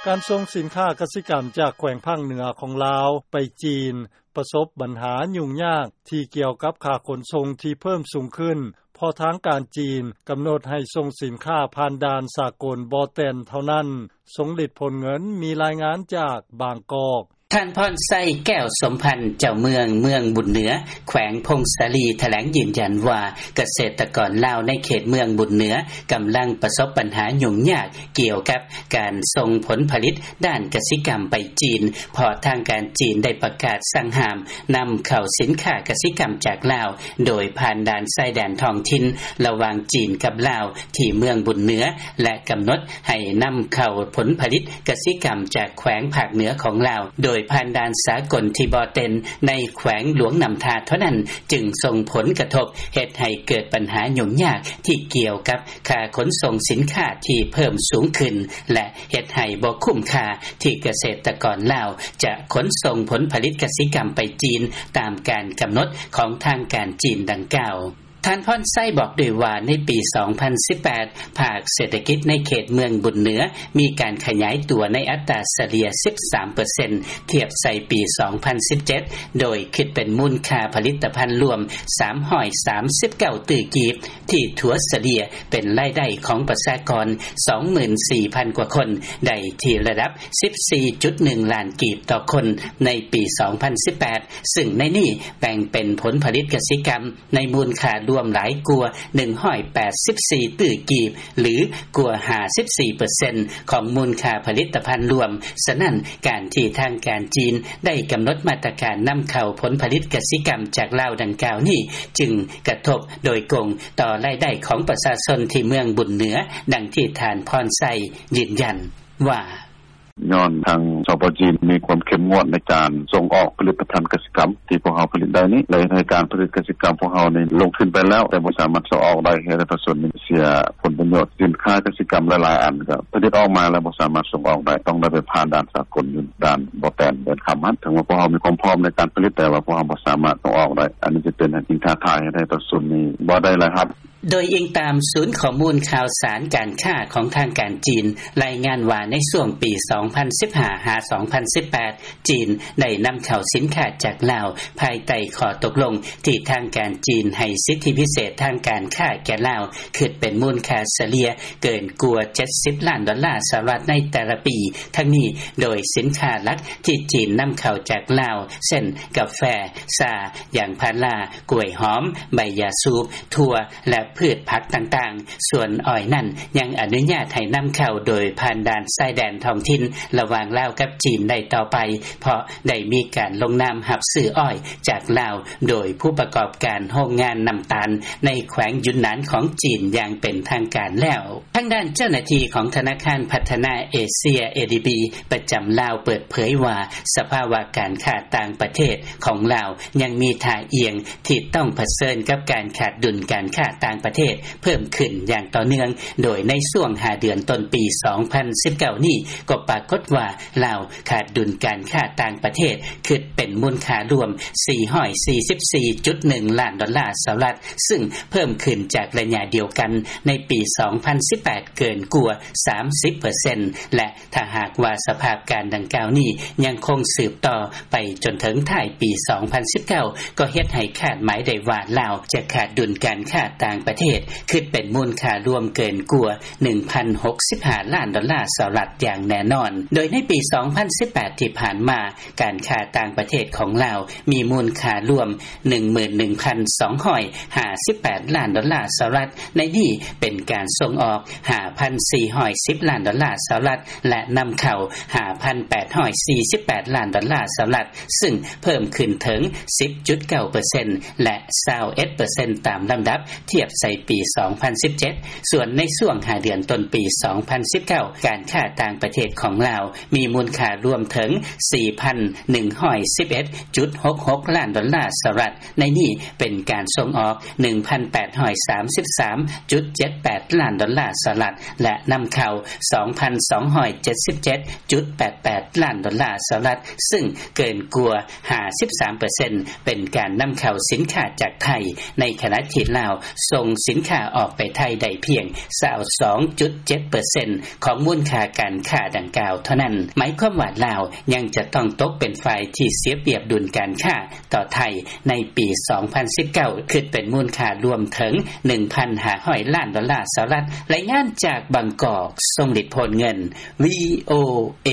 ການສົ່ງສິນຄ້າກະສິກຳຈາກແຂວງພາກເໜືອຂອງລາວໄປຈີນ ປະສົບບັນຫາຫຍຸ້ງຍາກທີ່ກ່ຽວກັບຄ່າຂົນສົ່ງທີ່ເພີ່ມສູງຂຶ້ນ ເພາະທາງການຈີນກຳນົດໃຫ້ສົ່ງສິນຄ້າຜ່ານດ່ານສາກົນບໍ່ແຕ່ນເທົ່ານັ້ນ. ສົງລິດ ພົນເງິນ ມີລາຍງານຈາກບາງກອກ. ທ່ານ ພອນໄຊ ແກ້ວສົມພັນ ເຈົ້າເມືອງ ເມືອງບຸນເໜືອ ແຂວງຜົ້ງສາລີ ຖະແຫຼງຢືນຢັນວ່າ ກະເສດຕະກອນລາວໃນເຂດເມືອງບຸນເໜືອ ກຳລັງປະສົບບັນຫາຫຍຸ້ງຍາກ ກ່ຽວກັບການສົ່ງຜົນຜະລິດດ້ານກະສິກຳໄປຈີນ ເພາະທາງການຈີນໄດ້ປະກາດສັ່ງຫ້າມນຳເຂົ້າສິນຄ້າກະສິກຳຈາກລາວ ໂດຍຜ່ານດ່ານຊາຍແດນທ້ອງຖິ່ນ ລະຫວ່າງຈີນກັບລາວ ທີ່ເມືອງບຸນເໜືອ ແລະ ກຳນົດໃຫ້ນຳເຂົ້າຜົນຜະລິດກະສິກຳຈາກແຂວງພາກເໜືອຂອງລາວ ໂດຍຜ່ານດ່ານສາກົນທີ່ບໍ່ເຕັນ ໃນແຂວງຫຼວງນ້ຳທາເທົ່ານັ້ນ ຈຶ່ງສົ່ງຜົນກະທົບ ເຮັດໃຫ້ເກີດບັນຫາຫຍຸ້ງຍາກທີ່ກ່ຽວກັບຄ່າຂົນສົ່ງສິນຄ້າທີ່ເພີ່ມສູງຂຶ້ນ ແລະ ເຮັດໃຫ້ບໍ່ຄຸ້ມຄ່າທີ່ກະເສດຕະກອນລາວຈະຂົນສົ່ງຜົນຜະລິດກະສິກຳໄປຈີນ ຕາມການກຳນົດຂອງທາງການຈີນດັ່ງກ່າວ. ທ່ານ ພອນໄຊ ບອກດ້ວຍວ່າ ໃນປີສອງພັນສິບແປດ ພາກເສດຖະກິດໃນເຂດເມືອງບຸນເໜືອ ມີການຂະຫຍາຍຕົວໃນອັດຕາສະເລ່ຍສິບສາມເປີເຊັນ ທຽບໃສ່ປີສອງພັນສິບເຈັດ ໂດຍຄິດເປັນມູນຄ່າຜະລິດຕະພັນລວມສາມຮ້ອຍສາມສິບເກົ້າຕື້ກີບ ທີ່ຖັວສະເລ່ຍເປັນລາຍໄດ້ຂອງປະຊາກອນສອງໝື່ນສີ່ພັນກວ່າຄົນ ໄດ້ທີ່ລະດັບສິບສີ່ຈຸດໜຶ່ງລ້ານກີບຕໍ່ຄົນໃນປີສອງພັນສິບແປດ ຊຶ່ງໃນນີ້ແບ່ງເປັນຜົນຜະລິດກະສິກຳ ໃນມູນຄ່າລວມຫຼາຍກວ່າໜຶ່ງຮ້ອຍແປດສິບສີ່ຕື້ກີບ ຫຼື ກວ່າຫ້າສິບສີ່ເປີເຊັນຂອງມູນຄ່າຜະລິດຕະພັນລວມ. ສະນັ້ນ, ການທີ່ທາງການຈີນໄດ້ກຳນົດມາດຕະການນຳເຂົ້າຜົນຜະລິດກະສິກຳຈາກລາວດັ່ງກ່າວນີ້ ຈຶ່ງກະທົບໂດຍກົງຕໍ່ລາຍໄດ້ຂອງປະຊາຊົນທີ່ເມືອງບຸນເໜືອ, ດັ່ງທີ່ທ່ານ ພອນໄຊ ຢືນຢັນວ່າ: ຍ້ອນທາງ ສປ ຈີນ ມີຄວາມເຂັ້ມງວດໃນການສົ່ງອອກຜະລິດຕະພັນກະສິກຳທີ່ພວກເຮົາຜະລິດໄດ້ນີ້ ແລະ ເຮັດໃຫ້ການຜະລິດກະສິກຳພວກເຮົານີ້ລົງທຶນໄປແລ້ວ ແຕ່ບໍ່ສາມາດສົ່ງອອກໄດ້ ເຮັດໃຫ້ປະຊາຊົນນີ້ເສຍຜົນປະໂຫຍດ. ສິນຄ້າກະສິກຳຫຼາຍໆອັນກໍຜະລິດອອກມາແລ້ວບໍ່ສາມາດສົ່ງອອກໄດ້ ຕ້ອງໄດ້ໄປຜ່ານດ່ານສາກົນຢູ່ດ່ານບໍ່ແຕນ ແດນຄຳຫັ້ນ. ເຖິງວ່າພວກເຮົາມີຄວາມພ້ອມໃນການຜະລິດ ແຕ່ວ່າພວກເຮົາບໍ່ສາມາດສົ່ງອອກໄດ້. ອັນນີ້ຈະເປັນສິ່ງທ້າທາຍ ເຮັດໃຫ້ປະຊາຊົນນີ້ບໍ່ໄດ້ລາຍຮັບ. ໂດຍອີງຕາມສູນຂໍ້ມູນຂ່າວສານການຄ້າຂອງທາງການຈີນ ລາຍງານວ່າໃນຊ່ວງປີສອງພັນສິບຫ້າ ຫາ ສອງພັນສິບແປດ ຈີນໄດ້ນຳເຂົ້າສິນຄ້າຈາກລາວ ພາຍໃຕ້ຂໍ້ຕົກລົງທີ່ທາງການຈີນໃຫ້ສິດທິພິເສດທາງການຄ້າແກ່ລາວ ຄິດເປັນມູນຄ່າສະເລ່ຍເກີນກວ່າເຈັດສິບລ້ານດອນລາສະຫະລັດໃນແຕ່ລະປີ. ທັງນີ້ ໂດຍສິນຄ້າຫຼັກທີ່ຈີນນຳເຂົ້າຈາກລາວ ເຊັ່ນ ກາແຟ, ຊາ, ຢາງພາລາ, ກ້ວຍຫອມ, ໃບຢາສູບ, ຖົ່ວ ແລະ ພືດຜັກຕ່າງໆ. ສ່ວນອ້ອຍນັ້ນ ຍັງອະນຸຍາດໃຫ້ນຳເຂົ້າໂດຍຜ່ານດ່ານຊາຍແດນທ້ອງຖິ່ນລະຫວ່າງລາວກັບຈີນໄດ້ຕໍ່ໄປ ເພາະໄດ້ມີການລົງນາມຮັບຊື້ອ້ອຍຈາກລາວ ໂດຍຜູ້ປະກອບການໂຮງງານນ້ຳຕານໃນແຂວງຢຸນນານຂອງຈີນຢ່າງເປັນທາງການແລ້ວ. ທາງດ້ານເຈົ້າໜ້າທີ່ຂອງທະນາຄານພັດທະນາເອເຊຍ ເອດີບີ ປະຈຳລາວເປີດເຜີຍວ່າ ສະພາວະການຄ້າຕ່າງປະເທດຂອງລາວຍັງມີທ່າອ່ຽງ ທີ່ຕ້ອງຜະເຊີນກັບການຂາດດຸນການຄ້າຕ່າງປະເທດເພີ່ມຂຶ້ນຢ່າງຕໍ່ເນື່ອງ, ໂດຍໃນຊ່ວງຫ້າເດືອນຕົ້ນປີສອງພັນສິບເກົ້ານີ້ ກໍປາກົດວ່າລາວຂາດດຸນການຄ້າຕ່າງປະເທດ ຄິດເປັນມູນຄ່າລວມສີ່ຮ້ອຍສີ່ສິບສີ່ຈຸດໜຶ່ງລ້ານດອນລາສະຫະລັດ, ຊຶ່ງເພີ່ມຂຶ້ນຈາກໄລຍະດຽວກັນໃນປີສອງພັນສິບແປດເກີນກວ່າສາມສິບເປີເຊັນ ແລະ ຖ້າຫາກວ່າສະພາບການດັ່ງກ່າວນີ້ຍັງຄົງສືບຕໍ່ໄປຈົນເຖິງທ້າຍປີສອງພັນສິບເກົ້າ ກໍເຮັດໃຫ້ຄາດໝາຍໄດ້ວ່າລາວຈະຂາດດຸນການຄ້າຕ່າງປະເທດ ຄິດເປັນມູນຄ່າລວມເກີນກວ່າໜຶ່ງພັນຫົກສິບຫ້າລ້ານດອນລາສະຫະລັດຢ່າງແນ່ນອນ. ໂດຍໃນປີສອງພັນສິບແປດທີ່ຜ່ານມາ ການຄ້າຕ່າງປະເທດຂອງລາວມີມູນຄ່າລວມໜຶ່ງໝື່ນໜຶ່ງພັນສອງຮ້ອຍຫ້າສິບແປດລ້ານດອນລາສະຫະລັດ, ໃນນີ້ເປັນການສົ່ງອອກຫ້າພັນສີ່ຮ້ອຍສິບລ້ານດອນລາສະຫະລັດ ແລະ ນຳເຂົ້າຫ້າພັນແປດຮ້ອຍສີ່ສິບແປດລ້ານດອນລາສະຫະລັດ, ຊຶ່ງເພີ່ມຂຶ້ນເຖິງສິບຈຸດເກົ້າເປີເຊັນ ແລະ ຊາວເອັດເປີເຊັນຕາມລຳດັບ ທຽບໃສ່ປີສອງພັນສິບເຈັດ. ສ່ວນໃນຊ່ວງຫ້າເດືອນຕົ້ນປີສອງພັນສິບເກົ້າ ການຄ້າຕ່າງປະເທດຂອງລາວມີມູນຄ່າລວມເຖິງສີ່ພັນໜຶ່ງຮ້ອຍສິບເອັດຈຸດຫົກຫົກລ້ານດອນລາສະຫະລັດ, ໃນນີ້ເປັນການສົ່ງອອກໜຶ່ງພັນແປດຮ້ອຍສາມສິບສາມຈຸດເຈັດແປດລ້ານດອນລາສະຫະລັດ ແລະ ນຳເຂົ້າສອງພັນສອງຮ້ອຍເຈັດສິບເຈັດຈຸດແປດແປດລ້ານດອນລາສະຫະລັດ, ຊຶ່ງເກີນກວ່າຫ້າສິບສາມເປີເຊັນ ເປັນການນຳເຂົ້າສິນຄ້າຈາກໄທ, ໃນຂະນະທີ່ລາວສົ່ງສິນຄ້າອອກໄປໄທໄດ້ພຽງຊາວສອງຈຸດເຈັດເປີເຊັນຂອງມູນຄ່າການຄ້າດັ່ງກ່າ ວເທົ່ານັ້ນ ໝາຍຄວາມວ່າ ລາວຍັງຈະຕ້ອງຕົກເປັນຝ່າຍທີ່ເສຍປຽບດຸນການຄ້າຕໍ່ໄທໃນປີ ສອງພັນສິບເກົ້າ ຄິດເປັນມູນຄ່າລວມເຖິງ ໜຶ່ງພັນຫ້າຮ້ອຍລ້ານດອນລາສະຫະລັດ. ລາຍງານຈາກບາງກອກ ຊົງລິດ ໂພນເງິນ ວີໂອເອ.